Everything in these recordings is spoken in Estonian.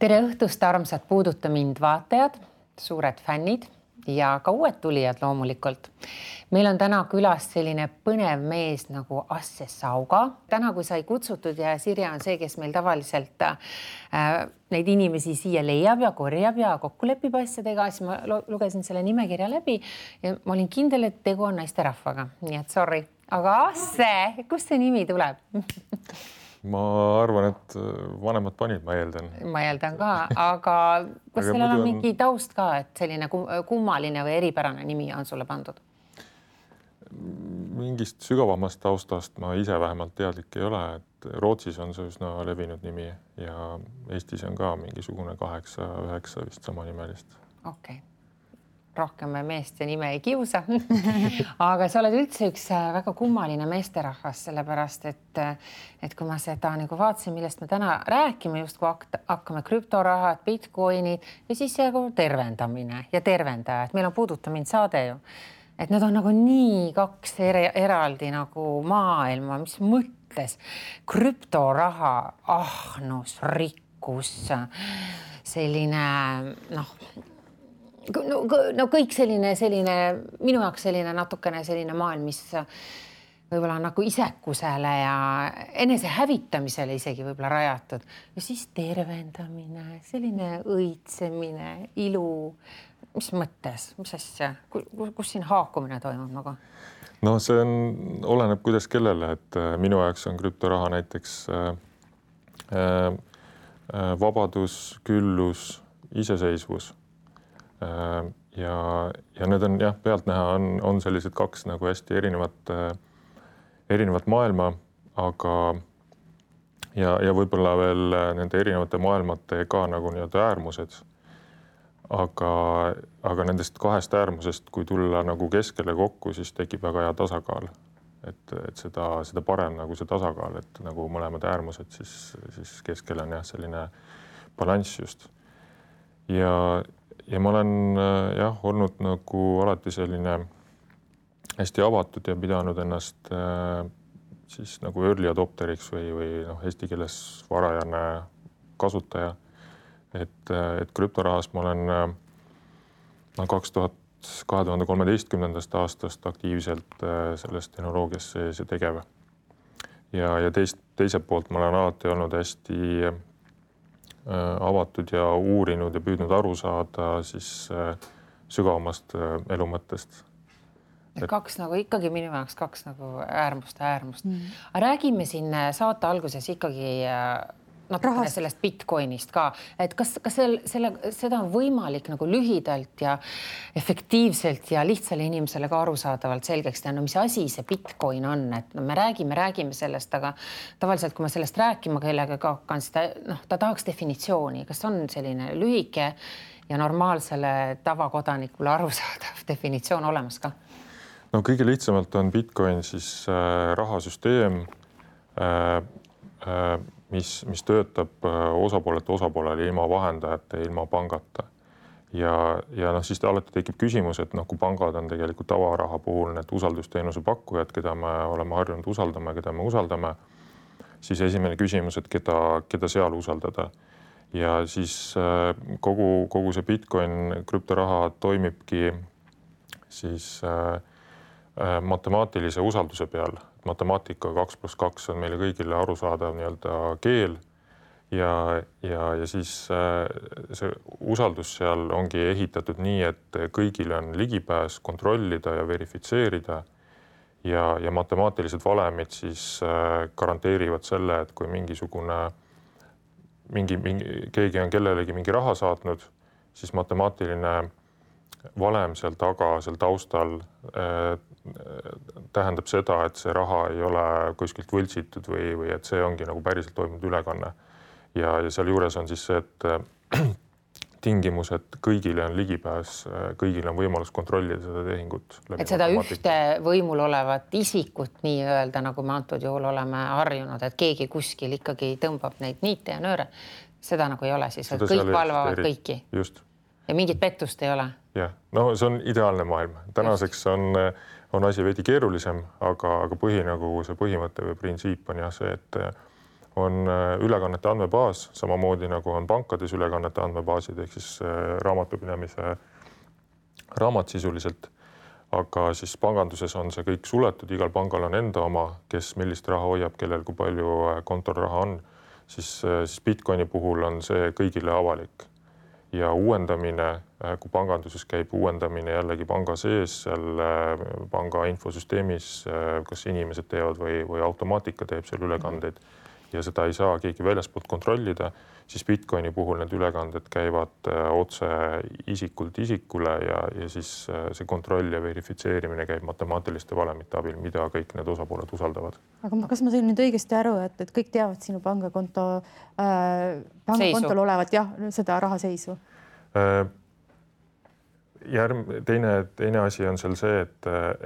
Tere õhtust, armsad Puuduta mind vaatajad, suured fännid ja ka uued tulijad loomulikult. Meil on täna külas selline põnev mees nagu Asse Sauga. Täna, kui sai kutsutud ja Sirje on see, kes meil tavaliselt neid inimesi siia leiab ja korjab ja kokku lepib asjadega, siis ma lugesin selle nimekirja läbi ja ma olin kindel, et tegu on naisterahvaga. Nii et sorry. Aga Asse, kust see nimi tuleb? Ma arvan, et vanemad panid, ma eeldan. Ma eeldan ka, aga kas sellel on mingi taust ka, et selline kummaline või eripärane nimi on sulle pandud? Mingist sügavamast taustast ma ise vähemalt teadlik ei ole, et Rootsis on see üsna levinud nimi ja Eestis on ka mingisugune 8-9 vist sama nimelist. Okei. Rohkem me meeste nime ei kiusa. Aga sa oled üldse üks väga kummaline meesterahvas, sellepärast, et kui ma seda nagu vaatasin, millest me täna räägime, just kui hakkame krüptorahad, bitcoinid ja siis tervendamine ja tervendajad. Meil on Puuduta mind saade ju. Et need on nagu nii kaks eraldi nagu maailma, mis mõttes krüptoraha, ahnus, rikkus, selline No kõik selline minu jaoks selline natukene selline maailm, mis võib-olla on nagu isekusele ja enese hävitamisele isegi võib-olla rajatud. Ja siis tervendamine, selline õitsemine, ilu. Mis mõttes? Mis asja? Kus siin haakumine toimub nagu? No see oleneb kuidas kellele, et minu jaoks on krüptoraha näiteks vabadus, küllus, iseseisvus. Ja need on pealtnäha on sellised kaks nagu hästi erinevat maailma, aga ja võib-olla veel nende erinevate maailmate ka nagu nii-öelda äärmused. Aga nendest kahest äärmusest, kui tulla nagu keskele kokku, siis tekib väga hea tasakaal. Et seda parem nagu see tasakaal, et nagu mõlemad äärmused, siis keskel on selline balanss just. Ja ma olen olnud nagu alati selline hästi avatud ja pidanud ennast siis nagu early adopteriks või eesti keeles varajane kasutaja. Et krüptorahas ma olen 2013. aastast aktiivselt selles tehnoloogias sees ja tegev. Ja teiselt poolt ma olen alati olnud hästi avatud ja uurinud ja püüdnud aru saada siis sügavamast elu mõttest. Kaks nagu ikkagi minu jaoks kaks nagu äärmust. Aga räägime siin saate alguses ikkagi natukene sellest bitcoinist ka, et kas seda on võimalik nagu lühidalt ja efektiivselt ja lihtsale inimesele ka arusaadavalt selgeks teha, mis asi see bitcoin on, et me räägime sellest, aga tavaliselt, kui ma sellest rääkima kellega hakkan, ta tahaks definitsiooni, kas on selline lühike ja normaalsele tavakodanikule arusaadav definitsioon olemas ka? No kõige lihtsamalt on bitcoin siis rahasüsteem, mis töötab osapoolele ilma vahendajate, ilma pangata. Ja siis alati tekib küsimus, et kui pangad on tegelikult tavaraha puhul need usaldusteenuse pakkujad, keda me oleme harjunud usaldama, keda me usaldame, siis esimene küsimus, et keda seal usaldada. Ja siis kogu see bitcoin krüptoraha toimibki siis matemaatilise usalduse peal. Matemaatika 2+2 on meile kõigile arusaadav nii-öelda keel ja siis see usaldus seal ongi ehitatud nii, et kõigil on ligipääs kontrollida ja verifitseerida ja matemaatilised valemid siis garanteerivad selle, et kui keegi on kellelegi mingi raha saatnud, siis matemaatiline valem seal taga, seal taustal tähendab seda, et see raha ei ole kuskilt võltsitud või et see ongi nagu päriselt toimunud ülekanne. Ja seal juures on siis see, et tingimus, et kõigile on ligipääs, kõigil on võimalus kontrollida seda tehingut. Et seda ühte võimul olevat isikut nii öelda, nagu me antud juhul oleme harjunud, et keegi kuskil ikkagi tõmbab neid niite ja nööre. Seda nagu ei ole siis, et kõik valvavad kõiki. Just. Ja mingit pettust ei ole. Jah, no see on ideaalne maailm. Tänaseks on asi veidi keerulisem, aga see põhimõte või printsiip on see, et on ülekannete andmebaas, samamoodi nagu on pankades ülekannete andmebaasid ehk siis raamatupidamise raamat sisuliselt. Aga siis panganduses on see kõik suletud, igal pangal on enda oma, kes millist raha hoiab, kellel kui palju kontol raha on, siis Bitcoini puhul on see kõigile avalik. Ja uuendamine, kui panganduses käib uuendamine jällegi panga sees, seal panga infosüsteemis, kas inimesed teevad või automaatika teeb seal ülekandeid ja seda ei saa keegi väljaspoolt kontrollida, siis Bitcoini puhul need ülekanded käivad otse isikult isikule ja siis see kontroll ja verifitseerimine käib matemaatiliste valemite abil, mida kõik need osapooled usaldavad. Aga kas ma sain nüüd õigesti aru, et kõik teavad sinu pangakontol olevat seda rahaseisu? Teine asi on seal see,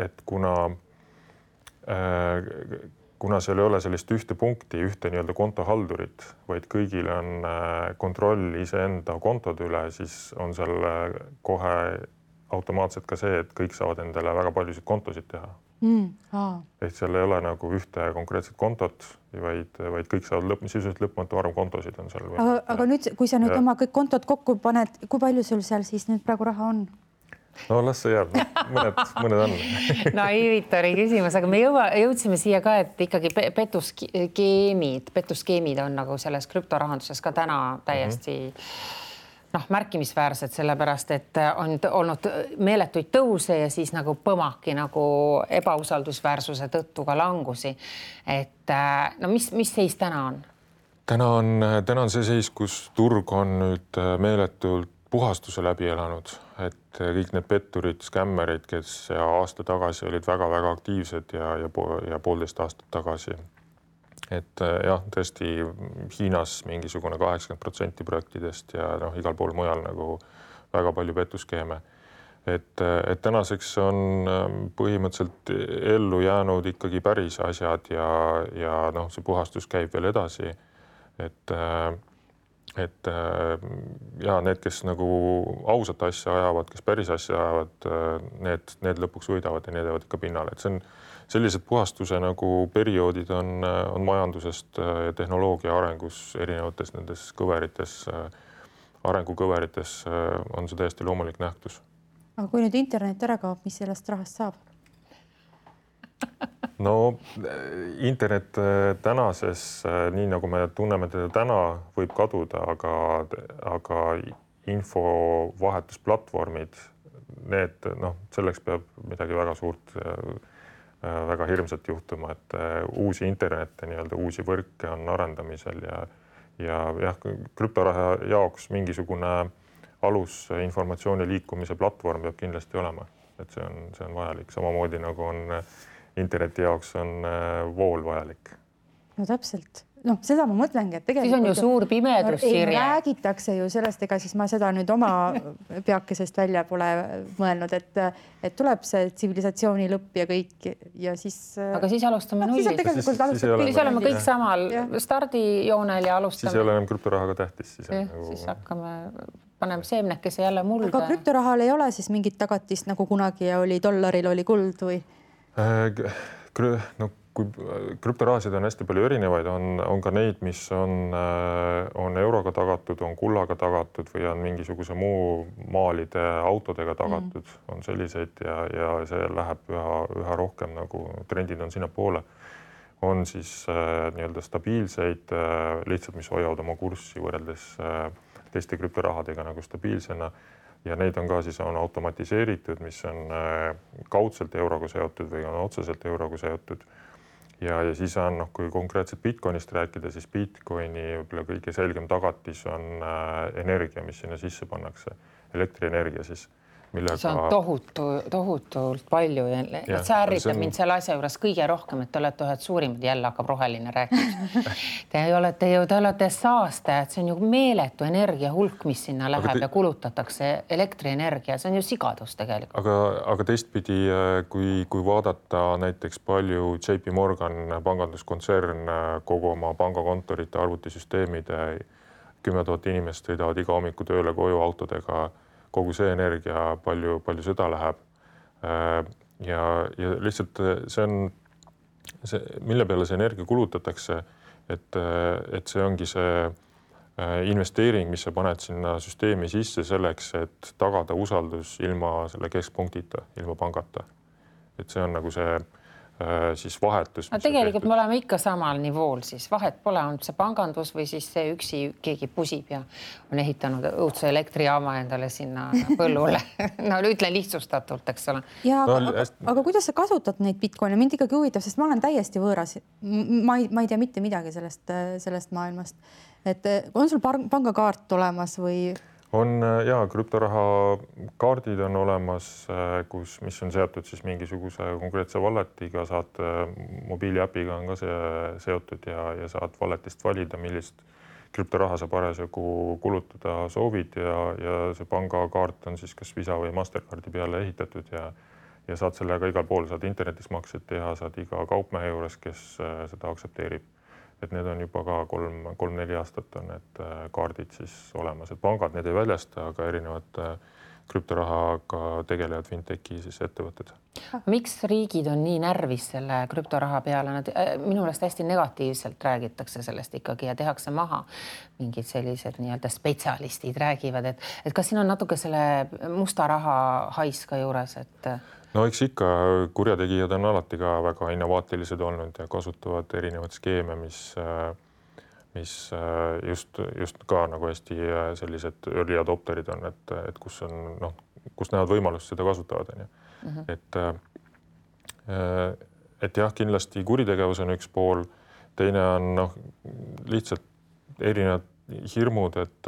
et kuna seal ei ole sellist ühte punkti, ühte nii-öelda kontohaldurit, vaid kõigil on kontroll iseenda kontode üle, siis on seal kohe automaatselt ka see, et kõik saavad endale väga paljusid kontosid teha. Ehk seal ei ole nagu ühte konkreetset kontot, vaid kõik saavad sisuliselt lõpmatu arv kontosid on seal. Aga nüüd, kui sa nüüd oma kõik kontod kokku paned, kui palju sul seal siis nüüd praegu raha on? No las see jääb, mõned on. Naivitori küsimus, aga me jõudsime siia ka, et ikkagi petuskeemid on nagu selles krüptorahanduses ka täna täiesti märkimisväärsed, sellepärast et on olnud meeletuid tõuse ja siis nagu põmaki nagu ebausaldusväärsuse tõttu ka langusi. Et mis seis täna on? Täna on see seis, kus turg on nüüd meeletult puhastuse läbi elanud, et kõik need petturid, skämmerid, kes aasta tagasi olid väga-väga aktiivsed ja 1,5 aastat tagasi. Et jah, tõesti Hiinas mingisugune 80% projektidest ja igal pool mujal nagu väga palju petuskeeme. Et tänaseks on põhimõtteliselt ellu jäänud ikkagi päris asjad ja see puhastus käib veel edasi. Et need, kes nagu ausat asja ajavad, kes päris asja ajavad, need lõpuks võidavad ja need jäävad ikka pinnale. Et see on sellised puhastuse nagu perioodid on majandusest ja tehnoloogia arengus erinevates nendes kõverites, arengukõverites on see täiesti loomulik nähtus. Aga kui nüüd internet ära kaob, mis sellest rahast saab? No internet tänases, nii nagu me tunneme teda täna, võib kaduda, aga infovahetusplatvormid, need, selleks peab midagi väga suurt, väga hirmsat juhtuma, et uusi internette, uusi võrke on arendamisel ja krüptoraha jaoks mingisugune alus informatsiooni liikumise platvorm peab kindlasti olema, et see on vajalik, samamoodi nagu on interneti jaoks on vool vajalik. No täpselt. Seda ma mõtlengi, et tegelikult... Siis on ju suur pimedus, Sirje. Räägitakse ju sellest, ega siis ma seda nüüd oma peakesest välja pole mõelnud, et tuleb see tsivilisatsiooni lõpp ja kõik ja siis... Aga siis alustame nullist. Siis oleme kõik samal stardijoonel ja alustame. Siis ei ole enam krüptorahaga tähtis. Siis hakkame, paneme seemnekese jälle mulda. Aga krüptorahal ei ole siis mingit tagatist, nagu kunagi oli dollaril oli kuld või? Kui krüptorahasid on hästi palju erinevaid, on ka neid, mis on euroga tagatud, on kullaga tagatud või on mingisuguse muu maalide autodega tagatud, on selliseid ja see läheb üha rohkem nagu trendid on sinna poole. On siis nii-öelda stabiilseid, lihtsalt mis hoiavad oma kurssi võrreldes teiste krüptorahadega nagu stabiilsena. Ja neid on ka siis on automatiseeritud, mis on kaudselt euroga seotud või on otseselt euroga seotud. Ja siis on, kui konkreetselt Bitcoinist rääkida, siis Bitcoini kõige selgem tagatis on energia, mis sinna sisse pannakse, elektrienergia siis. See on tohutult palju ja see ärritab mind selle asja juures kõige rohkem, et te olete ühed suurimad, jälle hakkab roheline rääkima. Te olete saastajad, see on ju meeletu energia hulk, mis sinna läheb ja kulutatakse elektrienergia, see on ju sigadus tegelikult. Aga teistpidi, kui vaadata näiteks palju JP Morgan panganduskontsern kogu oma pangakontorite arvutisüsteemide 10 000 inimest sõidavad iga hommiku tööle koju autodega, kogu see energia, palju seda läheb. Ja lihtsalt see on, mille peale see energia kulutatakse, et see ongi see investeering, mis sa paned sinna süsteemi sisse selleks, et tagada usaldus ilma selle keskpunktita, ilma pangata. Et see on nagu see siis vahetus. No tegelikult me oleme ikka samal nivool, siis vahet pole, on see pangandus või siis see üksi keegi pusib ja on ehitanud õudse elektrijaama endale sinna põllule. No ütlen lihtsustatult, eks ole. Ja, aga kuidas sa kasutad neid Bitcoine? Mind ikkagi huvitab, sest ma olen täiesti võõras. Ma ei tea mitte midagi sellest maailmast. Et on sul pangakaart olemas või... On ja krüptoraha kaardid on olemas, mis on seotud siis mingisuguse konkreetse walletiga, saad mobiiliäpiga on ka see seotud ja saad walletist valida, millist krüptoraha sa parasjagu kulutada soovid ja see pangakaart on siis kas Visa või Mastercardi peale ehitatud ja saad sellega igal pool, saad internetis maksed teha, saad iga kaupmehe juures, kes seda aksepteerib. Et need on juba ka 3-4 aastat on need kaardid siis olemas, et pangad need ei väljasta, aga erinevad krüptorahaga tegelevad fintech'i siis ettevõtted. Miks riigid on nii närvis selle krüptoraha peale? Nad minu meelest hästi negatiivselt räägitakse sellest ikkagi ja tehakse maha. Mingid sellised nii-öelda spetsialistid räägivad, et kas siin on natuke selle musta raha hais ka juures, et... No eks ikka kurjategijad on alati ka väga innovaatilised olnud ja kasutavad erinevad skeeme, mis just ka nagu hästi sellised early adopterid on, et kus näevad võimalust seda kasutavad. Et jah, kindlasti kuritegevus on üks pool, teine on lihtsalt erinevad hirmud, et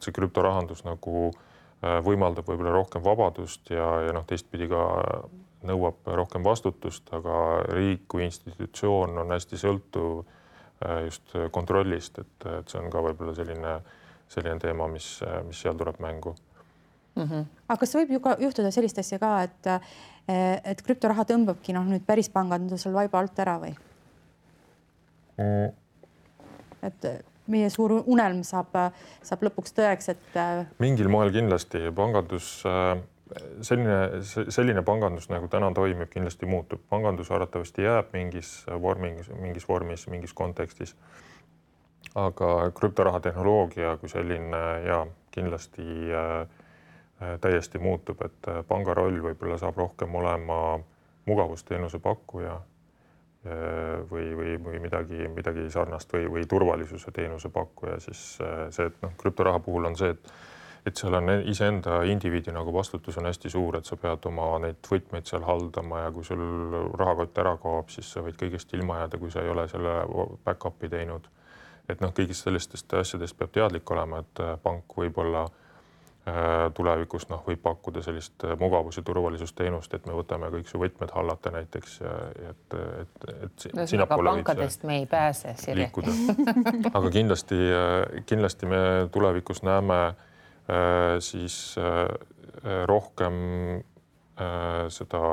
see krüptorahandus nagu võimaldab võib-olla rohkem vabadust ja teistpidi ka nõuab rohkem vastutust, aga riik kui institutsioon on hästi sõltuv just kontrollist, et see on ka võib-olla selline teema, mis seal tuleb mängu. Aga kas võib juhtuda sellist asja ka, et krüptoraha tõmbabki nüüd päris pangandusel vaiba alt ära või? Et meie suur unelm saab lõpuks tõeks, et... Mingil moel kindlasti pangandus, selline pangandus nagu täna toimib, kindlasti muutub. Pangandus arvatavasti jääb mingis vormis, mingis kontekstis. Aga krüptoraha tehnoloogia kui selline kindlasti täiesti muutub, et panga roll võib-olla saab rohkem olema mugavusteenuse pakkuja või midagi sarnast või turvalisuse teenuse pakkuja, siis see, et krüptoraha puhul on see, et seal on iseenda indiviidi nagu vastutus on hästi suur, et sa pead oma neid võtmeid seal haldama ja kui sul rahakott ära kaob, siis sa võid kõigest ilma jääda, kui sa ei ole selle back-up'i teinud. Et kõigist sellistest asjadest peab teadlik olema, et pank võib-olla tulevikus võib pakkuda sellist mugavus- ja turvalisusteenust, et me võtame kõik su võtmed hallata näiteks, et pankadest me ei pääse liikuda. Aga kindlasti me tulevikus näeme siis rohkem seda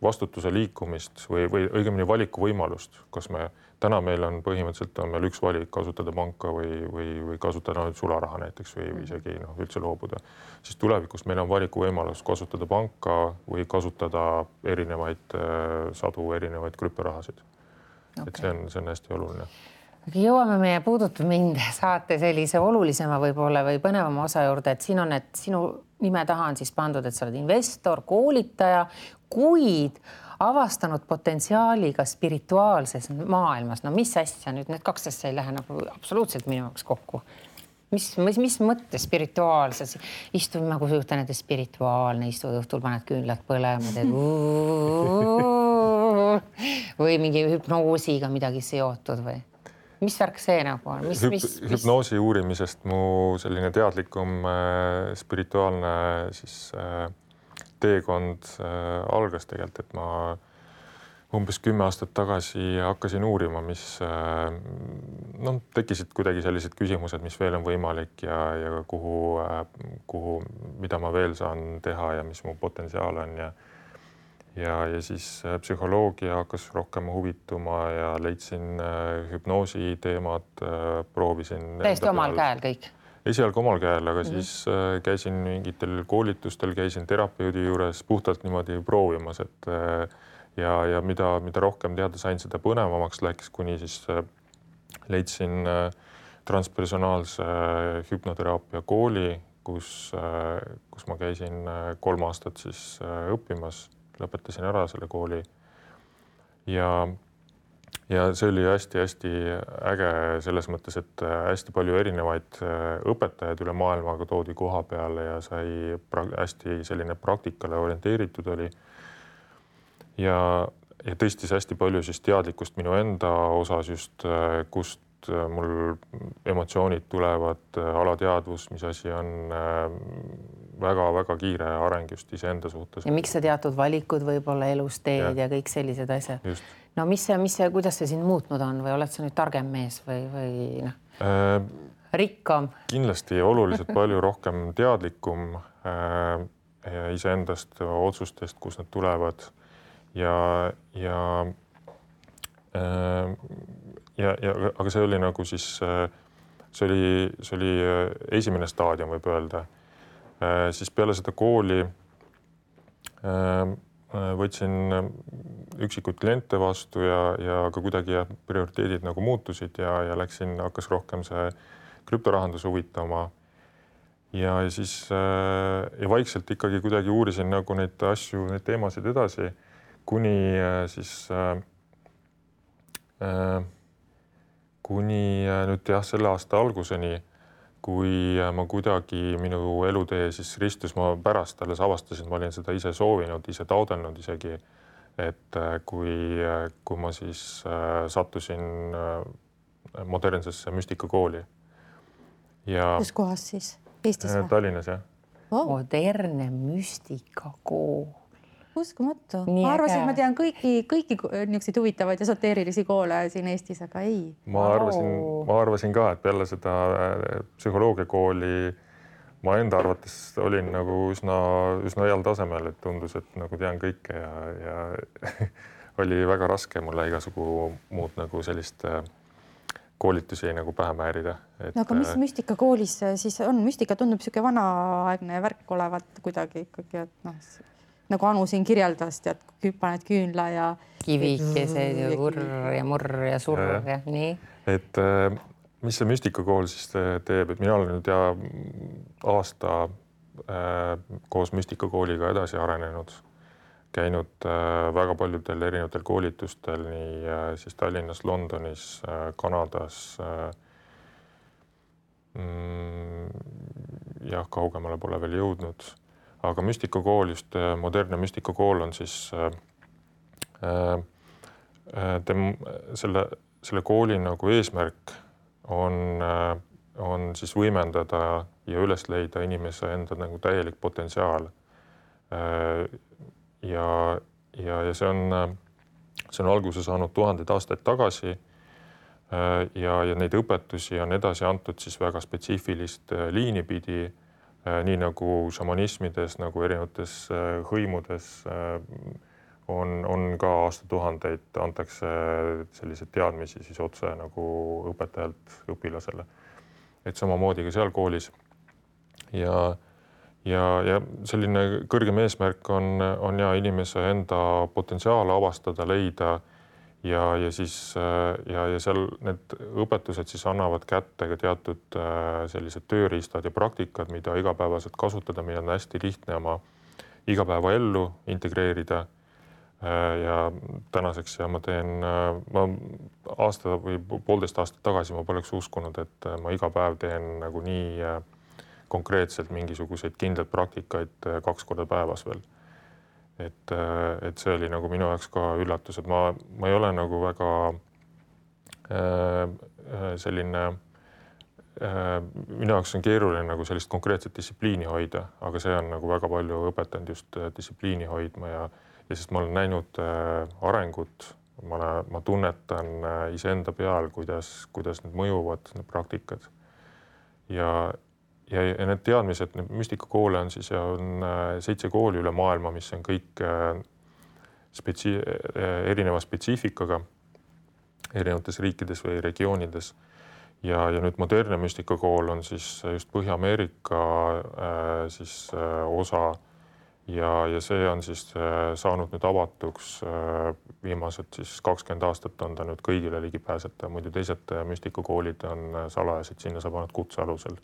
vastutuse liikumist või õigemini valikuvõimalust, kas täna meil on põhimõtteliselt on meil üks valik kasutada panka või kasutada sularaha näiteks või isegi üldse loobuda. Siis tulevikus meil on valikuvõimalus kasutada panka või kasutada sadu erinevaid krüptorahasid. Okay. Et see on hästi oluline. Jõuame meie Puudutab mind saate sellise olulisema võib-olla või põnevama osa juurde, et siin on, et sinu nime taha on siis pandud, et sa oled investor, koolitaja, kuid avastanud potentsiaaliga spirituaalses maailmas. No mis asja nüüd, need kaks asja ei lähe nagu absoluutselt minu jaoks kokku. Mis mõttes spirituaalses? Istud nagu juhtan, et spirituaalne, istud õhtul, paned küünlad põlema, teed või mingi hüpnoosiga midagi seotud või? Mis värk see nagu on? Hüpnoosi uurimisest mu selline teadlikum spirituaalne siis teekond algas tegelikult, et ma umbes 10 aastat tagasi hakkasin uurima, mis tekkisid kuidagi sellised küsimused, mis veel on võimalik ja kuhu, mida ma veel saan teha ja mis mu potentsiaal on ja siis psühholoogia hakkas rohkem huvituma ja leidsin hüpnoosi teemad, proovisin. Täiesti omal käel kõik? Esialgu omal käel, aga siis käisin mingitel koolitustel, käisin terapeudi juures puhtalt niimoodi proovimas, ja mida rohkem teada sain, seda põnevamaks läks, kuni siis leidsin transpersonaalse hüpnoteraapia kooli, kus ma käisin 3 aastat siis õppimas, lõpetasin ära selle kooli. Ja see oli hästi-hästi äge selles mõttes, et hästi palju erinevaid õpetajaid üle maailmaga toodi koha peale ja sai hästi selline praktikale orienteeritud oli. Ja tõstis hästi palju siis teadlikkust minu enda osas just, kust mul emotsioonid tulevad, alateadvus, mis asi on väga-väga kiire areng just iseenda suhtes. Ja miks sa teatud valikud võib-olla elus teed ja kõik sellised asjad? Just. No kuidas see sind muutnud on või oled sa nüüd targem mees või rikkam? Kindlasti oluliselt palju rohkem teadlikum iseendast, otsustest, kus nad tulevad aga see oli nagu siis, see oli esimene staadium, võib öelda. Siis peale seda kooli võtsin üksikuid kliente vastu ja ka kuidagi prioriteedid nagu muutusid ja hakkas rohkem see krüptorahandus huvitama. Ja siis vaikselt ikkagi kuidagi uurisin nagu neid asju, neid teemasid edasi, kuni nüüd selle aasta alguseni, kui ma kuidagi minu elutee siis ristus, ma pärast alles avastasin, ma olin seda ise soovinud, ise taodelnud isegi, et kui ma siis sattusin modernsesse müstikakooli. Kus kohas siis? Eestis või? Tallinnas, jah. Modernne müstikakool. Uskumatu. Ma arvasin, et ma tean kõiki niisuguseid huvitavaid esoteerilisi koole siin Eestis, aga ei. Ma arvasin ka, et peale seda psühholoogiakooli ma enda arvates olin nagu üsna heal tasemel, et tundus, et nagu tean kõike ja oli väga raske mulle igasugu muud nagu sellist koolitusi nagu pähe määrida. No aga mis müstikakoolis siis on? Müstika tundub niisugune vanaaegne värk olevat kuidagi ikkagi, et nagu Anu siin kirjeldas, tead, paned küünla ja kivikesed ja vurr ja murr ja surr ja nii. Et mis see müstikakool siis teeb, et mina olen nüüd aasta koos müstikakooliga edasi arenenud, käinud väga paljudel erinevatel koolitustel, nii siis Tallinnas, Londonis, Kanadas, kaugemale pole veel jõudnud. Aga müstikakool, just modernne müstikakool on siis selle kooli nagu eesmärk on siis võimendada ja üles leida inimese enda nagu täielik potentsiaal. Ja see on alguse saanud 1000 aastaid tagasi ja neid õpetusi on edasi antud siis väga spetsiifilist liini pidi, nii nagu šamanismides, nagu erinevates hõimudes on ka aastatuhandeid antakse selliseid teadmisi siis otse nagu õpetajalt õpilasele. Et samamoodi ka seal koolis. Ja selline kõrgem eesmärk on inimese enda potentsiaal avastada, leida ja seal need õpetused siis annavad kätte ka teatud sellised tööriistad ja praktikad, mida igapäevaselt kasutada, mida on hästi lihtne oma igapäevaellu integreerida. Ja tänaseks ma aasta või 1,5 aastat tagasi ma poleks uskunud, et ma iga päev teen nagu nii konkreetselt mingisuguseid kindlaid praktikaid 2 korda päevas veel. Et see oli nagu minu jaoks ka üllatus, et ma ei ole nagu väga selline, minu jaoks on keeruline nagu sellist konkreetset distsipliini hoida, aga see on nagu väga palju õpetanud just distsipliini hoidma ja sest ma olen näinud arengut, ma tunnetan iseenda peal, kuidas need mõjuvad, need praktikad ja need teadmised, need müstikakoole on siis ja on 7 kooli üle maailma, mis on kõik erineva spetsiifikaga erinevates riikides või regioonides. Ja nüüd modernne müstikakool on siis just Põhja-Ameerika siis osa ja see on siis saanud nüüd avatuks viimased siis 20 aastat on ta nüüd kõigile ligipääsetav, muidu teised müstikakoolid on salajased, sinna saab ainult kutse alusel.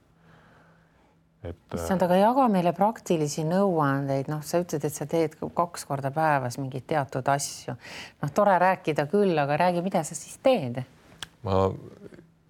Issand, aga jaga meile praktilisi nõuandeid, noh, sa ütled, et sa teed 2 korda päevas mingeid teatud asju. Noh, tore rääkida küll, aga räägi, mida sa siis teed? Ma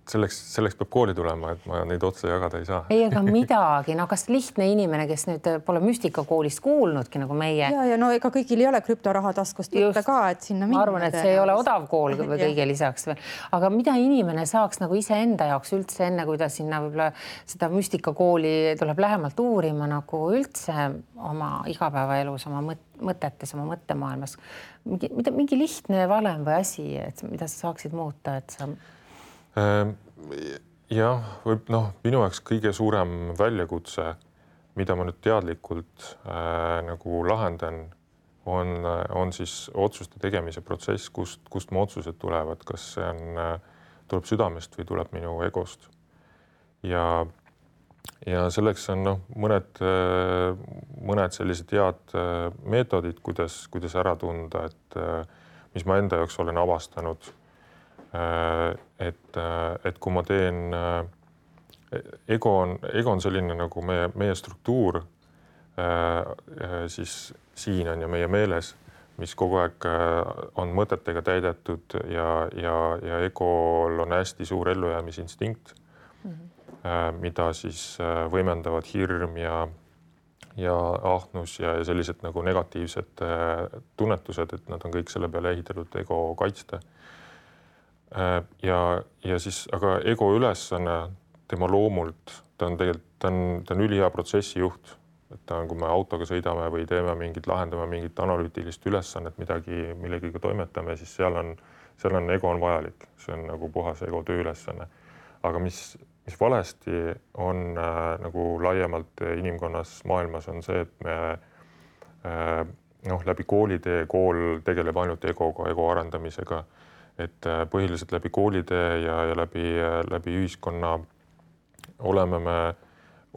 selleks peab kooli tulema, et ma neid otsa jagada ei saa. Ei, aga midagi, no kas lihtne inimene, kes nüüd pole müstikakoolist kuulnudki nagu meie. Ja no ega kõigil ei ole krüptoraha taskust võtta ka, et sinna minna. Ma arvan, et see ei ole odav kool või kõige lisaks. Aga mida inimene saaks nagu iseenda jaoks üldse enne, kui ta sinna võib-olla seda müstikakooli tuleb lähemalt uurima nagu üldse oma igapäevaelus, oma mõtetes, oma mõttemaailmas. Mingi lihtne valem või asi, et mida sa saaksid muuta, et sa... Jah, võib minu jaoks kõige suurem väljakutse, mida ma nüüd teadlikult nagu lahendan, on siis otsuste tegemise protsess, kust mu otsused tulevad, kas see tuleb südamest või tuleb minu egost. Ja selleks on mõned sellised head meetodid, kuidas ära tunda, et mis ma enda jaoks olen avastanud. Et kui ma teen, ego on selline nagu meie struktuur, siis siin on ja meie meeles, mis kogu aeg on mõtetega täidetud ja egol on hästi suur ellujäämisinstinkt, mida siis võimendavad hirm ja ahnus ja sellised nagu negatiivsed tunnetused, et nad on kõik selle peale ehitatud ego kaitsta. Ja siis, aga ego ülesanne tema loomult, ta on ülihea protsessijuht, et ta on, kui me autoga sõidame või lahendame mingit analüütilist ülesannet, millegiga toimetame, siis seal on ego on vajalik, see on nagu puhas ego tööülesanne. Aga mis valesti on nagu laiemalt inimkonnas maailmas on see, et me läbi koolitee, kool tegeleb ainult egoga, ego arendamisega, et põhiliselt läbi koolitee ja läbi ühiskonna oleme me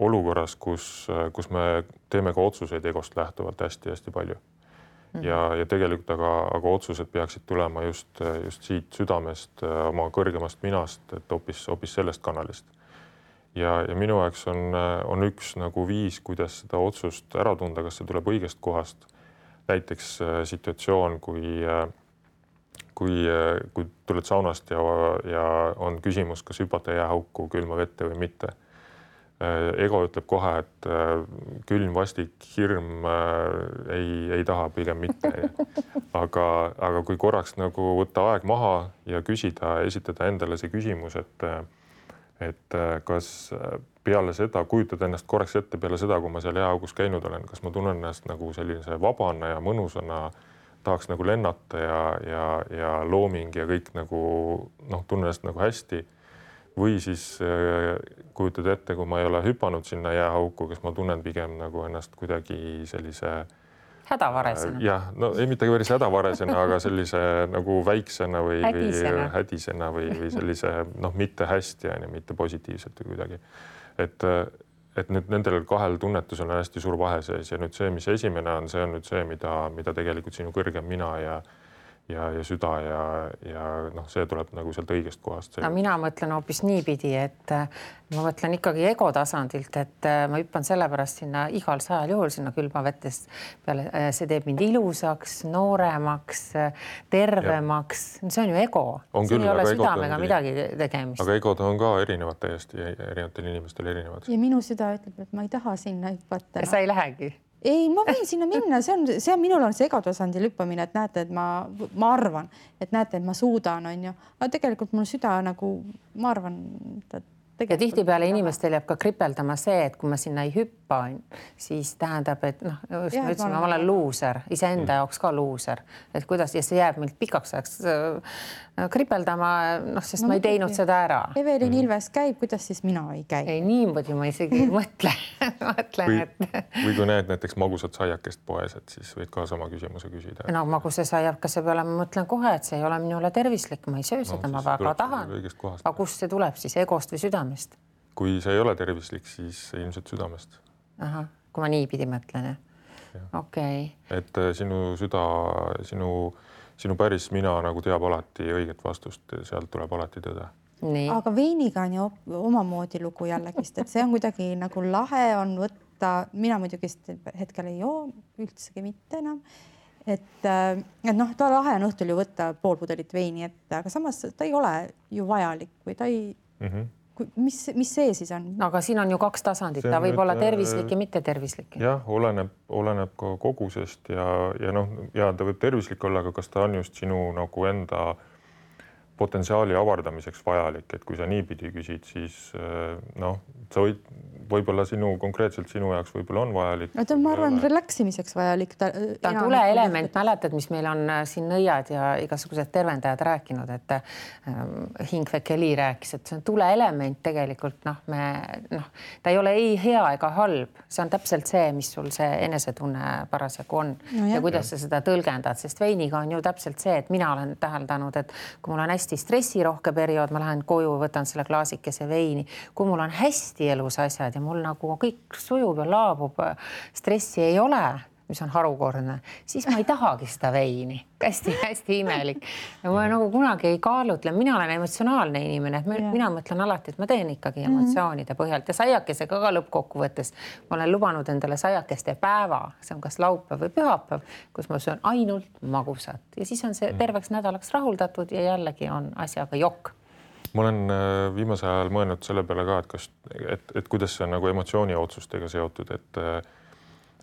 olukorras, kus me teeme ka otsuseid egost lähtuvalt hästi-hästi palju. Ja tegelikult aga otsused peaksid tulema just siit südamest, oma kõrgemast minast, et hoopis sellest kanalist. Ja minu jaoks on üks nagu viis, kuidas seda otsust ära tunda, kas see tuleb õigest kohast. Näiteks situatsioon, kui tuled saunast ja on küsimus, kas hüpata jääauku külma vette või mitte. Ego ütleb kohe, et külm, vastik, hirm ei taha pigem mitte. Aga kui korraks nagu võtta aeg maha ja esitada endale see küsimus, et kas peale seda, kujutad ennast korraks ette peale seda, kui ma seal jääaugus käinud olen, kas ma tunnen ennast nagu sellise vabana ja mõnusana, tahaks nagu lennata ja looming ja kõik nagu tunnen ennast nagu hästi või siis kujutad ette, kui ma ei ole hüpanud sinna jääauku, kas ma tunnen pigem nagu ennast kuidagi sellise hädavaresena. Jah, no ei mitte päris hädavaresena, aga sellise nagu väiksena või hädisena või sellise mitte hästi, mitte positiivselt või kuidagi. Et nüüd nendel kahel tunnetusel on hästi suur vahe sees ja nüüd see, mis esimene on, see on nüüd see, mida tegelikult sinu kõrgem mina ja süda ja see tuleb nagu sealt õigest kohast. No mina mõtlen hoopis niipidi, et ma mõtlen ikkagi ego tasandilt, et ma hüppan sellepärast sinna igal 100 juhul sinna külmavettest peale. See teeb mind ilusaks, nooremaks, tervemaks. See on ju ego. Siin ei ole südamega midagi tegemist. Aga egod on ka erinevad täiesti, erinevatel inimestel erinevad. Ja minu süda ütleb, et ma ei taha sinna hüpata. Sa ei lähegi? Ei, ma võin sinna minna, see on minul on see egotasandil hüppamine, et näete, et ma arvan, et näete, et ma suudan, on ju. Aga tegelikult mul süda nagu, ma arvan, ja tihtipeale inimestel jääb ka kripeldama see, et kui ma sinna ei hüppa, siis tähendab, et ma olen luuser, iseenda jaoks ka luuser, et kuidas ja see jääb meilt pikaks ajaks kripeldama, sest ma ei teinud seda ära. Evelin Ilves käib, kuidas siis mina ei käi? Ei, niimoodi ma isegi mõtlen, Või kui näed näiteks magusat saiakest poes, et siis võid ka sama küsimuse küsida. No maguse saiakese peale ma mõtlen kohe, et see ei ole minule tervislik, ma ei söö seda, ma väga tahan. Aga kust see tuleb siis, egost või südamest? Kui see ei ole tervislik, siis ilmselt südamest. Aha, kui ma niipidi mõtlen, jah. Okei. Et sinu süda, sinu päris mina nagu teab alati õiget vastust, sealt tuleb alati tõde. Nii. Aga veiniga on ju omamoodi lugu jällegist, et see on kuidagi nagu lahe on võtta, mina muidugi hetkel ei joo üldsegi mitte enam, et noh, ta lahe on õhtul ju võtta pool pudelit veini ette, aga samas ta ei ole ju vajalik või ta ei, mis see siis on? Aga siin on ju 2 tasandit, ta võib olla tervislik ja mitte tervislik. Jah, oleneb ka kogusest ja noh, ja ta võib tervislik olla, aga kas ta on just sinu nagu enda potentsiaali avardamiseks vajalik, et kui sa niipidi küsid, siis noh, sa võib-olla konkreetselt sinu jaoks võib-olla on vajalik. No ta on, ma arvan, relaksimiseks vajalik. Ta on tuleelement, mäletad, mis meil on siin nõiad ja igasugused tervendajad rääkinud, et Hingvek Eli rääkis, et see on tuleelement tegelikult, ta ei ole ei hea ega halb, see on täpselt see, mis sul see enesetunne parasjagu on ja kuidas sa seda tõlgendad, sest veiniga on ju täpselt see, et mina olen täheldanud, et kui mul on hästi stressirohke periood, ma lähen koju, võtan selle klaasikese veini, kui mul on hästi elus asjad ja mul nagu kõik sujub ja laabub, stressi ei ole, mis on harukordne, siis ma ei tahagi seda veini. Hästi imelik. Ja ma nagu kunagi ei kaalutle, mina olen emotsionaalne inimene, et mina mõtlen alati, et ma teen ikkagi emotsioonide põhjalt ja saiakesega ka lõppkokkuvõttes. Ma olen lubanud endale saiakeste päeva, see on kas laupäev või pühapäev, kus ma söön ainult magusat ja siis on see terveks nädalaks rahuldatud ja jällegi on asjaga jokk. Ma olen viimasel ajal mõelnud selle peale ka, et kuidas see on nagu emotsiooni otsustega seotud, et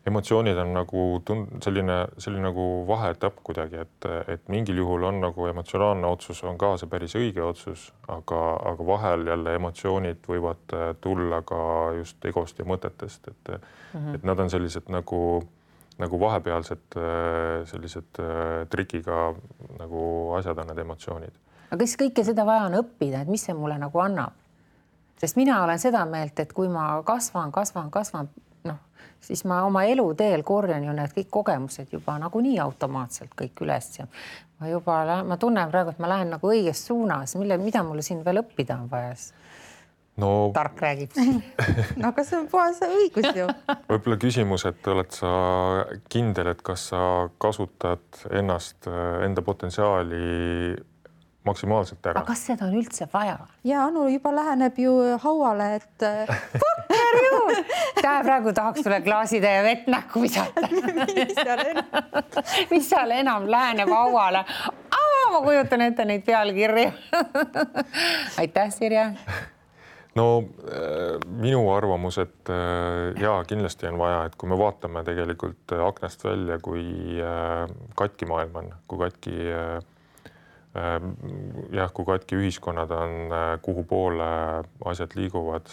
emotsioonid on nagu selline nagu vaheetapp kuidagi, et mingil juhul on nagu emotsionaalne otsus on ka see päris õige otsus, aga vahel jälle emotsioonid võivad tulla ka just egost ja mõtetest, et nad on sellised nagu vahepealsed sellised trikiga nagu asjad on need emotsioonid. Aga kas kõike seda vaja on õppida, et mis see mulle nagu annab? Sest mina olen seda meelt, et kui ma kasvan, siis ma oma eluteel korjan ju need kõik kogemused juba nagu nii automaatselt kõik üles ja ma tunnen praegu, et ma lähen nagu õiges suunas, mida mulle siin veel õppida on vaja. No, tark räägib. No aga see on puhas õigus ju. Võib-olla küsimus, et oled sa kindel, et kas sa kasutad enda potentsiaali maksimaalselt ära. Aga kas seda on üldse vaja? Ja Anu juba läheneb ju hauale, et fucker ju! Praegu tahaks sulle klaaside ja vett näkku visata. Mis seal enam läheneb hauale? Ma kujutan ette neid pealkirju. Aitäh, Sirje. No minu arvamus, et kindlasti on vaja, et kui me vaatame tegelikult aknast välja, kui katki maailm on, kui katki ühiskonnad on, kuhu poole asjad liiguvad,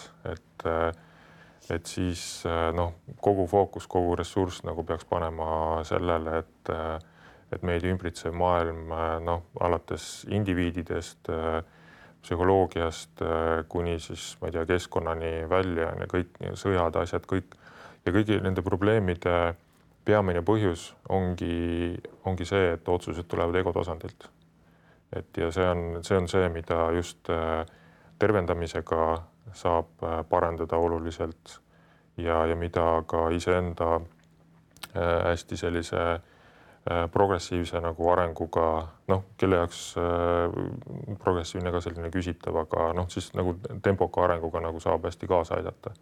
et siis kogu fookus, kogu ressurss nagu peaks panema sellele, et meid ümbritsev maailm alates indiviididest, psühholoogiast kuni siis, ma ei tea, keskkonnani välja ja kõik sõjad, asjad, kõik ja kõigi nende probleemide peamine põhjus ongi see, et otsused tulevad ego tasandilt. Ja see on see, mida just tervendamisega saab parandada oluliselt ja mida ka iseenda hästi sellise progressiivse nagu arenguga, kelle jaoks progressiivne ka selline küsitav, aga siis nagu tempoka arenguga nagu saab hästi kaasa aidata.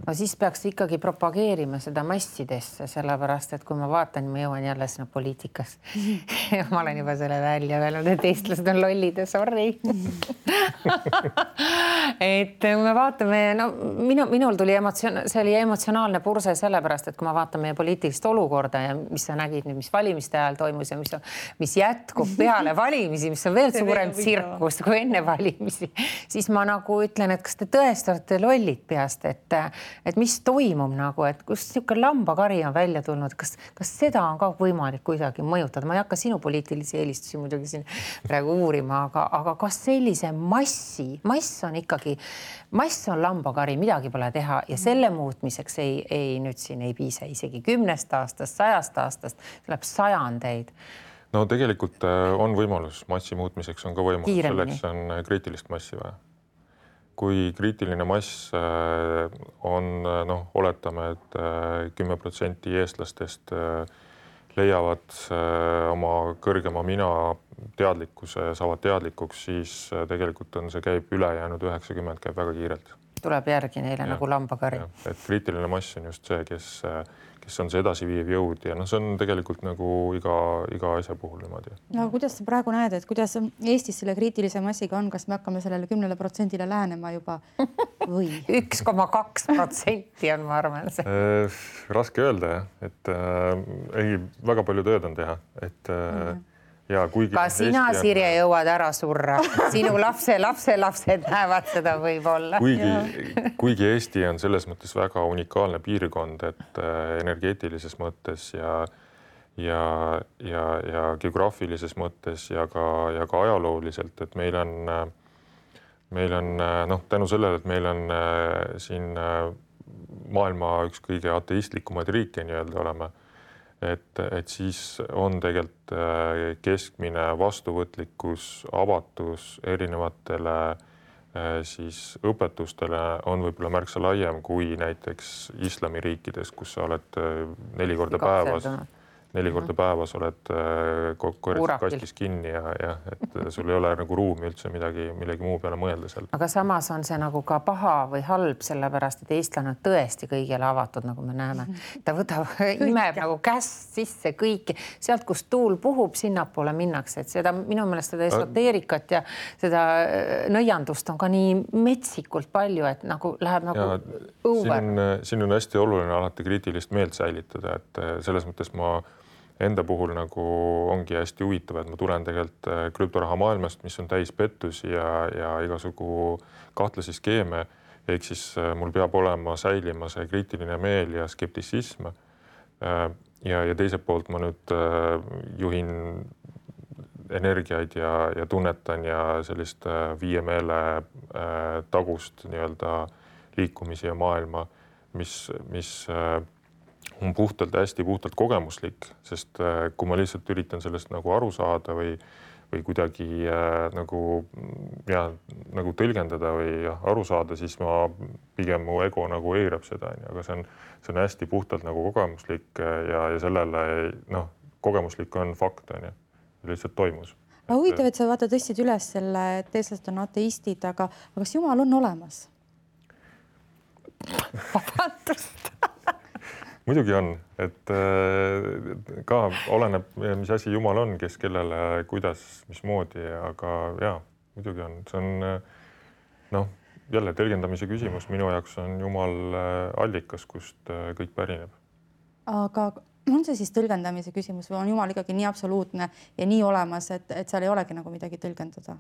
No siis peaks ikkagi propageerima seda massidesse, sellepärast, et kui ma vaatan, ma jõuan jälle sinna poliitikas. Ma olen juba selle välja öelnud, et eestlased on lollid ja sorry. Et kui me vaatame, minul tuli see oli emotsionaalne purse sellepärast, et kui ma vaatan meie poliitilist olukorda ja mis sa nägid nüüd, mis valimiste ajal toimus ja mis jätkub peale valimisi, mis on veel suurem tsirkus kui enne valimisi, siis ma nagu ütlen, et kas te tõesti olete lollid peast, et mis toimub nagu, et kus niisugune lambakari on välja tulnud, kas seda on ka võimalik kuidagi mõjutada? Ma ei hakka sinu poliitilisi eelistusi muidugi siin praegu uurima, aga kas sellise mass on lambakari, midagi pole teha ja selle muutmiseks nüüd siin ei piisa isegi 10 aastast, 100 aastast, tuleb sajandeid. No tegelikult on võimalus massi muutmiseks, on ka võimalus, selleks on kriitilist massi vaja. kui kriitiline mass on, oletame, et 10% eestlastest leiavad oma kõrgema mina teadlikkuse, saavad teadlikuks, siis tegelikult on see käib ülejäänud 90 käib väga kiirelt. Tuleb järgi neile nagu lambakari. Et kriitiline mass on just see, kes on see edasiviiv jõud ja see on tegelikult nagu iga asja puhul niimoodi. No kuidas sa praegu näed, et kuidas Eestis selle kriitilise massiga on, kas me hakkame sellele 10% lähenema juba või? 1,2% on, ma arvan. Raske öelda jah, et väga palju tööd on teha, et ja kuigi ka sina, Sirje, jõuad ära surra. Sinu lapsed näevad seda võib-olla. Kuigi Eesti on selles mõttes väga unikaalne piirkond, et energeetilises mõttes ja geograafilises mõttes ja ka ajalooliselt, et meil on tänu sellele, et meil on siin maailma üks kõige ateistlikumaid riike nii-öelda oleme, et siis on tegelikult keskmine vastuvõtlikkus, avatus erinevatele siis õpetustele on võib-olla märksa laiem kui näiteks islamiriikides, kus sa oled 4 korda päevas oled kastis kinni ja et sul ei ole nagu ruumi üldse millegi muu peale mõelda seal. Aga samas on see nagu ka paha või halb, sellepärast, et eestlane on tõesti kõigele avatud, nagu me näeme. Ta imeb nagu käst sisse kõiki. Sealt, kus tuul puhub, sinnapoole minnakse. Et seda minu meelest seda esoteerikat ja seda nõiandust on ka nii metsikult palju, et nagu läheb nagu õuver. Siin on hästi oluline alati kriitilist meelt säilitada, et selles mõttes ma enda puhul nagu ongi hästi huvitav, et ma tulen tegelikult krüptoraha maailmast, mis on täis pettusi ja igasugu kahtlasi skeeme. Ehk siis mul peab olema säilima see kriitiline meel ja skeptisism. Ja teiselt poolt ma nüüd juhin energiaid ja tunnetan ja sellist viie meele tagust nii-öelda liikumisi ja maailma, mis on hästi puhtalt kogemuslik, sest kui ma lihtsalt üritan sellest nagu aru saada või kuidagi nagu tõlgendada või aru saada, siis pigem mu ego nagu eirab seda, aga see on hästi puhtalt nagu kogemuslik ja sellele kogemuslik on fakt, lihtsalt toimus. Huvitav, et sa tõstsid üles selle, et eestlased on ateistid, aga kas Jumal on olemas? Vabandust! Muidugi on, et ka oleneb, mis asi Jumal on, kes kellele, kuidas, mismoodi, aga muidugi on. See on jälle tõlgendamise küsimus. Minu jaoks on Jumal allikas, kust kõik pärineb. Aga on see siis tõlgendamise küsimus või on Jumal ikkagi nii absoluutne ja nii olemas, et seal ei olegi nagu midagi tõlgendada?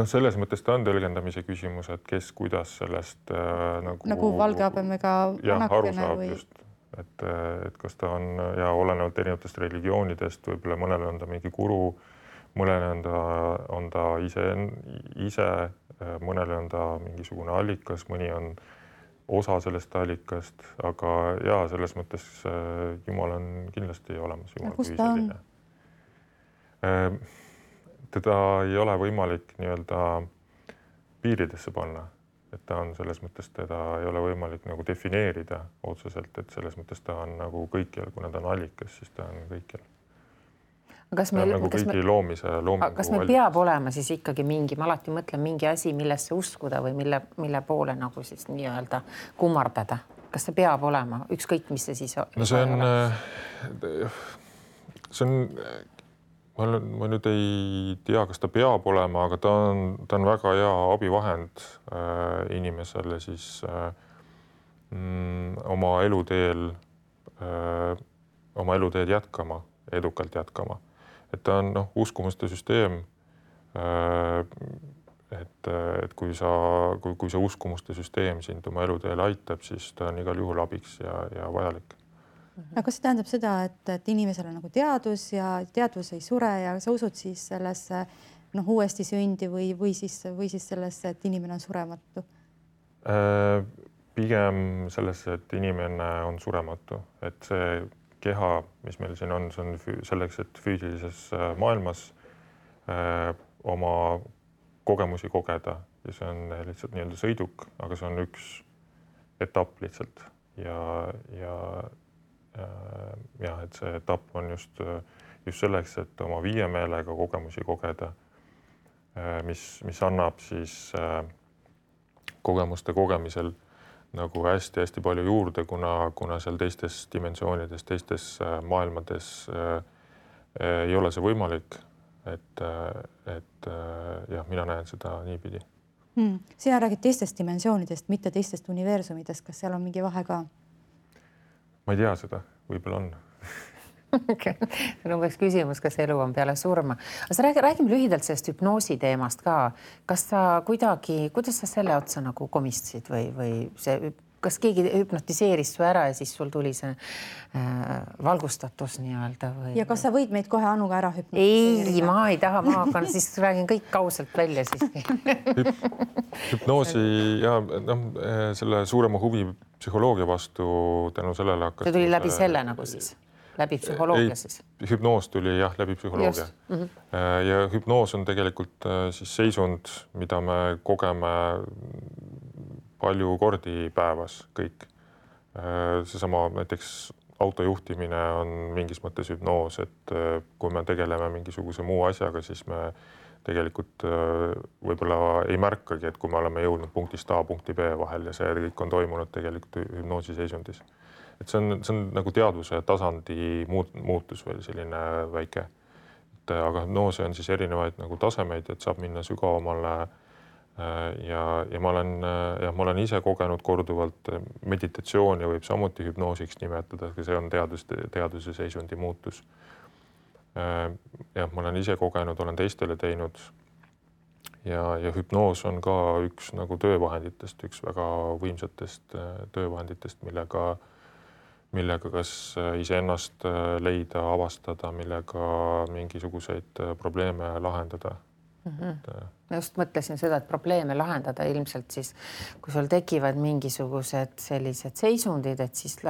Selles mõttes ta on tõlgendamise küsimus, et kes kuidas sellest nagu valge habemega aru saab just, et kas ta on olenevalt erinevatest religioonidest, võib-olla mõnele on ta mingi guru, mõnele on ta ise, mõnele on ta mingisugune allikas, mõni on osa sellest allikast, aga selles mõttes Jumal on kindlasti olemas. Kus ta on? Teda ei ole võimalik nii-öelda piiridesse panna, et ta on selles mõttes, teda ei ole võimalik nagu defineerida otseselt, et selles mõttes ta on nagu kõikjal, kuna ta on allikas, siis ta on kõikjal. Kas meil peab olema siis ikkagi mingi, ma alati mõtlen mingi asi, millesse uskuda või mille poole nagu siis nii-öelda kummardada. Kas see peab olema? Ükskõik, mis see siis on? See on ma nüüd ei tea, kas ta peab olema, aga ta on väga hea abivahend inimesele siis oma eluteed jätkama, edukalt jätkama. Et ta on uskumuste süsteem, et kui see uskumuste süsteem sind oma eluteel aitab, siis ta on igal juhul abiks ja vajalik. Aga kas see tähendab seda, et inimesel on nagu teadus ja teadvus ei sure ja sa usud siis sellesse uuesti sündi või siis sellesse, et inimene on surematu? Pigem sellesse, et inimene on surematu, et see keha, mis meil siin on, see on selleks, et füüsilises maailmas oma kogemusi kogeda ja see on lihtsalt nii-öelda sõiduk, aga see on üks etapp lihtsalt ja et see etapp on just selleks, et oma viiemeelega kogemusi kogeda, mis annab siis kogemuste kogemisel nagu hästi-hästi palju juurde, kuna seal teistes dimensioonides, teistes maailmades ei ole see võimalik, et jah, mina näen seda niipidi. Sina räägid teistest dimensioonidest, mitte teistest universumidest. Kas seal on mingi vahe ka? Ma ei tea seda, võib-olla on. Okay. See on umbes küsimus, kas elu on peale surma. Aga räägime lühidalt sellest hüpnoosi teemast ka. Kas sa kuidas sa selle otsa nagu komistasid või kas keegi hüpnotiseeris su ära ja siis sul tuli see valgustatus nii-öelda või? Ja kas sa võid meid kohe Anuga ära hüpnotiseerida? Ei, ma ei taha, ma hakkan, siis räägin kõik kausalt välja siiski. Hüpnoosi ja selle suurema huvi psühholoogia vastu tänu sellele hakkas. See tuli läbi selle nagu siis? Läbi psühholoogia siis? Hüpnoos tuli jah, läbi psühholoogia. Ja hüpnoos on tegelikult siis seisund, mida me kogeme palju kordi päevas kõik. Seesama näiteks autojuhtimine on mingis mõttes hüpnoos, et kui me tegeleme mingisuguse muu asjaga, siis me tegelikult võib-olla ei märkagi, et kui me oleme jõudnud punktist A punkti B vahel ja see kõik on toimunud tegelikult hüpnoosi seisundis. Et see on nagu teadvuse tasandi muutus veel selline väike. Aga hüpnoosi on siis erinevaid nagu tasemeid, et saab minna sügavamale ja ma olen ise kogenud korduvalt meditatsiooni võib samuti hüpnoosiks nimetada, see on teaduse seisundi muutus. Ja ma olen ise kogenud, olen teistele teinud ja hüpnoos on ka üks nagu töövahenditest, üks väga võimsatest töövahenditest, millega kas iseennast leida, avastada, millega mingisuguseid probleeme lahendada. Ma just mõtlesin seda, et probleeme lahendada ilmselt siis, kui sul tekivad mingisugused sellised seisundid, et siis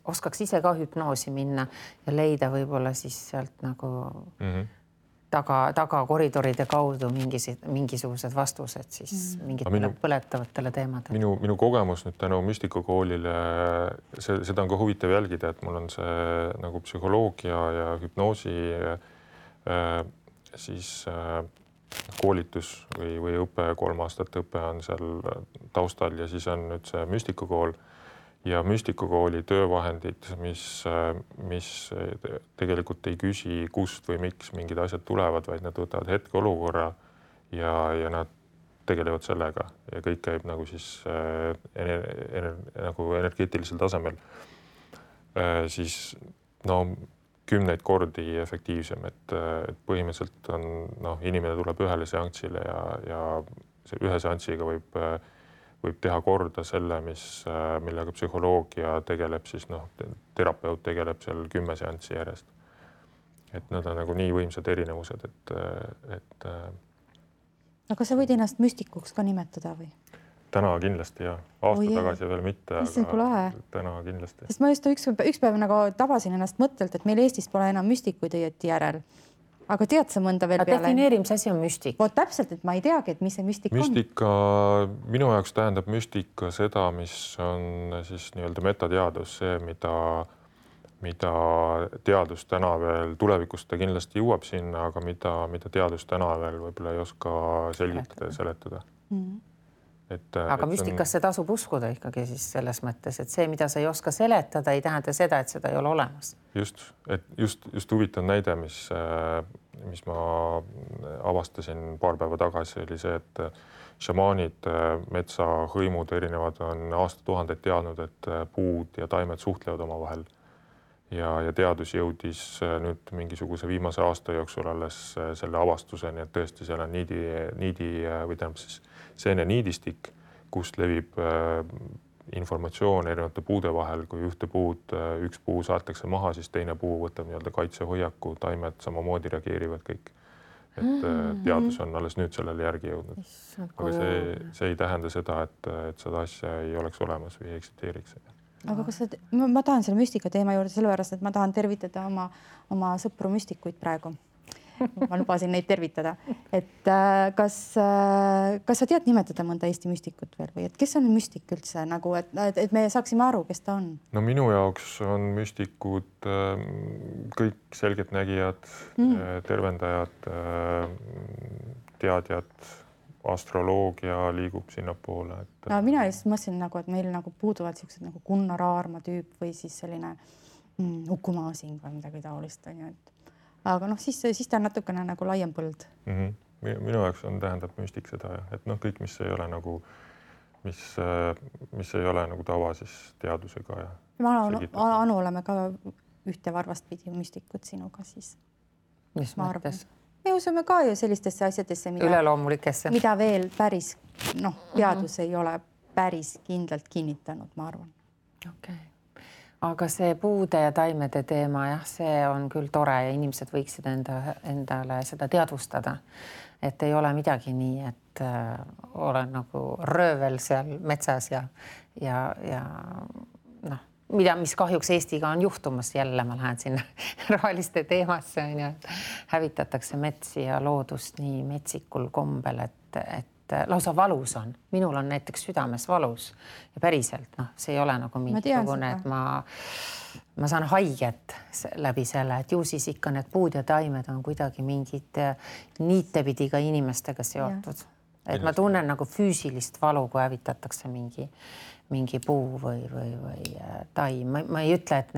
oskaks ise ka hüpnoosi minna ja leida võib-olla siis sealt nagu taga koridoride kaudu mingisugused vastused siis mingitele põletavatele teemadele. Minu kogemus nüüd tänu müstikakoolile, seda on ka huvitav jälgida, et mul on see nagu psühholoogia ja hüpnoosi siis koolitus või õpe, 3 aastat õpe on seal taustal ja siis on nüüd see müstikakool ja müstikakooli töövahendid, mis tegelikult ei küsi, kust või miks mingid asjad tulevad, vaid nad võtavad hetkeolukorra ja nad tegelevad sellega ja kõik käib nagu siis nagu energeetilisel tasemel. Siis kümneid kordi efektiivsem, et põhimõtteliselt on inimene tuleb ühele seanssile ja ühe seanssiga võib teha korda selle, millega psühholoogia tegeleb, siis terapeut tegeleb seal 10 seanssi järjest. Et nad on nagu nii võimsad erinevused, et Aga sa võid ennast müstikuks ka nimetada või? Täna kindlasti ja aasta tagasi veel mitte, aga täna kindlasti. Sest ma just üks päev nagu tabasin ennast mõttelt, et meil Eestis pole enam müstikuid õieti järel. Aga tead sa mõnda veel peale? Defineeri, mis asi on müstik? Täpselt, et ma ei teagi, et mis see müstik on. Minu jaoks tähendab müstika seda, mis on siis nii-öelda metateadus, see, mida teadus täna veel, tulevikus ta kindlasti jõuab sinna, aga mida teadus täna veel võib-olla ei oska selgitada ja seletada. Aga müstikasse tasub uskuda ikkagi siis selles mõttes, et see, mida sa ei oska seletada, ei tähenda seda, et seda ei ole olemas. Just huvitav näide, mis ma avastasin paar päeva tagasi, oli see, et šamaanid, metsahõimud erinevad on aastatuhandeid teadnud, et puud ja taimed suhtlevad omavahel. Ja teadus jõudis nüüd mingisuguse viimase aasta jooksul alles selle avastuseni, et tõesti seal on niidi või tähendab siis seene niidistik, kust levib informatsioon erinevate puude vahel, kui üks puu saatakse maha, siis teine puu võtab nii-öelda kaitsehoiaku, taimed samamoodi reageerivad kõik. Et teadus on alles nüüd sellele järgi jõudnud. Aga see ei tähenda seda, et seda asja ei oleks olemas või ei eksisteeriks. Aga kas ma tahan selle müstika teema juurde sellepärast, et ma tahan tervitada oma sõpru müstikuid praegu. ma lubasin neid tervitada, et kas sa tead nimetada mõnda Eesti müstikut veel või et kes on müstik üldse nagu, et me saaksime aru, kes ta on? No minu jaoks on müstikud kõik selgeltnägijad, tervendajad, teadjad, astroloogia liigub sinnapoole. No mina just mõtlesin nagu, et meil nagu puuduvad siuksed nagu Gunnar Aarma tüüp või siis selline Uku Masing või midagi taolist on ju, et aga noh, siis ta on natukene nagu laiem põld. Minu jaoks tähendab müstik seda, et noh, kõik, mis ei ole nagu, mis ei ole nagu tava siis teadusega. Anu oleme ka ühte varvast pidi müstikud sinuga siis. Mis mõttes? Me usume ka ju sellistesse asjadesse, mida veel päris teadus ei ole päris kindlalt kinnitanud, ma arvan. Okay. Aga see puude ja taimede teema, jah, see on küll tore ja inimesed võiksid endale seda teadvustada, et ei ole midagi nii, et olen nagu röövel seal metsas ja noh, mis kahjuks Eestiga on juhtumas jälle, ma lähen sinna roheliste teemasse, on ju, et hävitatakse metsi ja loodust nii metsikul kombel, et lausa valus on. Minul on näiteks südames valus ja päriselt, noh, see ei ole nagu mingisugune, et ma saan haiget läbi selle, et ju siis ikka need puud ja taimed on kuidagi mingid niitepidi ka inimestega seotud. Et ma tunnen nagu füüsilist valu, kui hävitatakse mingi puu või taim. Ma ei ütle, et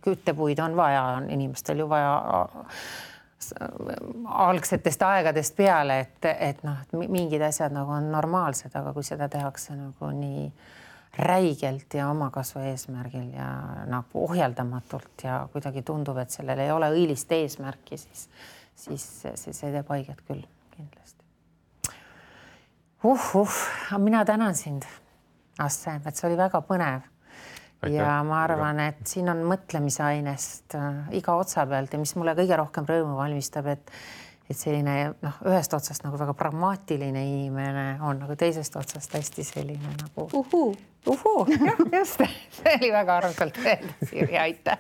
küttepuid on vaja, on inimestel ju vaja algsetest aegadest peale, et mingid asjad nagu on normaalsed, aga kui seda tehakse nagu nii räigelt ja omakasvu eesmärgil ja nagu ohjeldamatult ja kuidagi tundub, et sellel ei ole õilist eesmärki, siis see teeb haiget küll kindlasti. Mina tänan sind, Asse, et see oli väga põnev. Aitäh. Ja ma arvan, et siin on mõtlemise ainest iga otsa pealt ja mis mulle kõige rohkem rõõmu valmistab, et selline ühest otsast nagu väga pragmaatiline inimene on nagu teisest otsast hästi selline nagu just, see oli väga armsalt öeldud, Sirje, aitäh.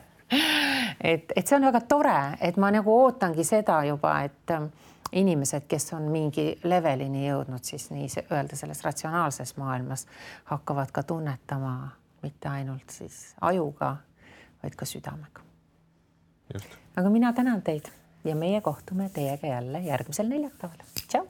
Et see on väga tore, et ma nagu ootangi seda juba, et inimesed, kes on mingi levelini jõudnud, siis nii öelda selles ratsionaalses maailmas hakkavad ka tunnetama mitte ainult siis ajuga, vaid ka südamega. Just. Aga mina tänan teid ja meie kohtume teiega jälle järgmisel neljapäeval. Tšau!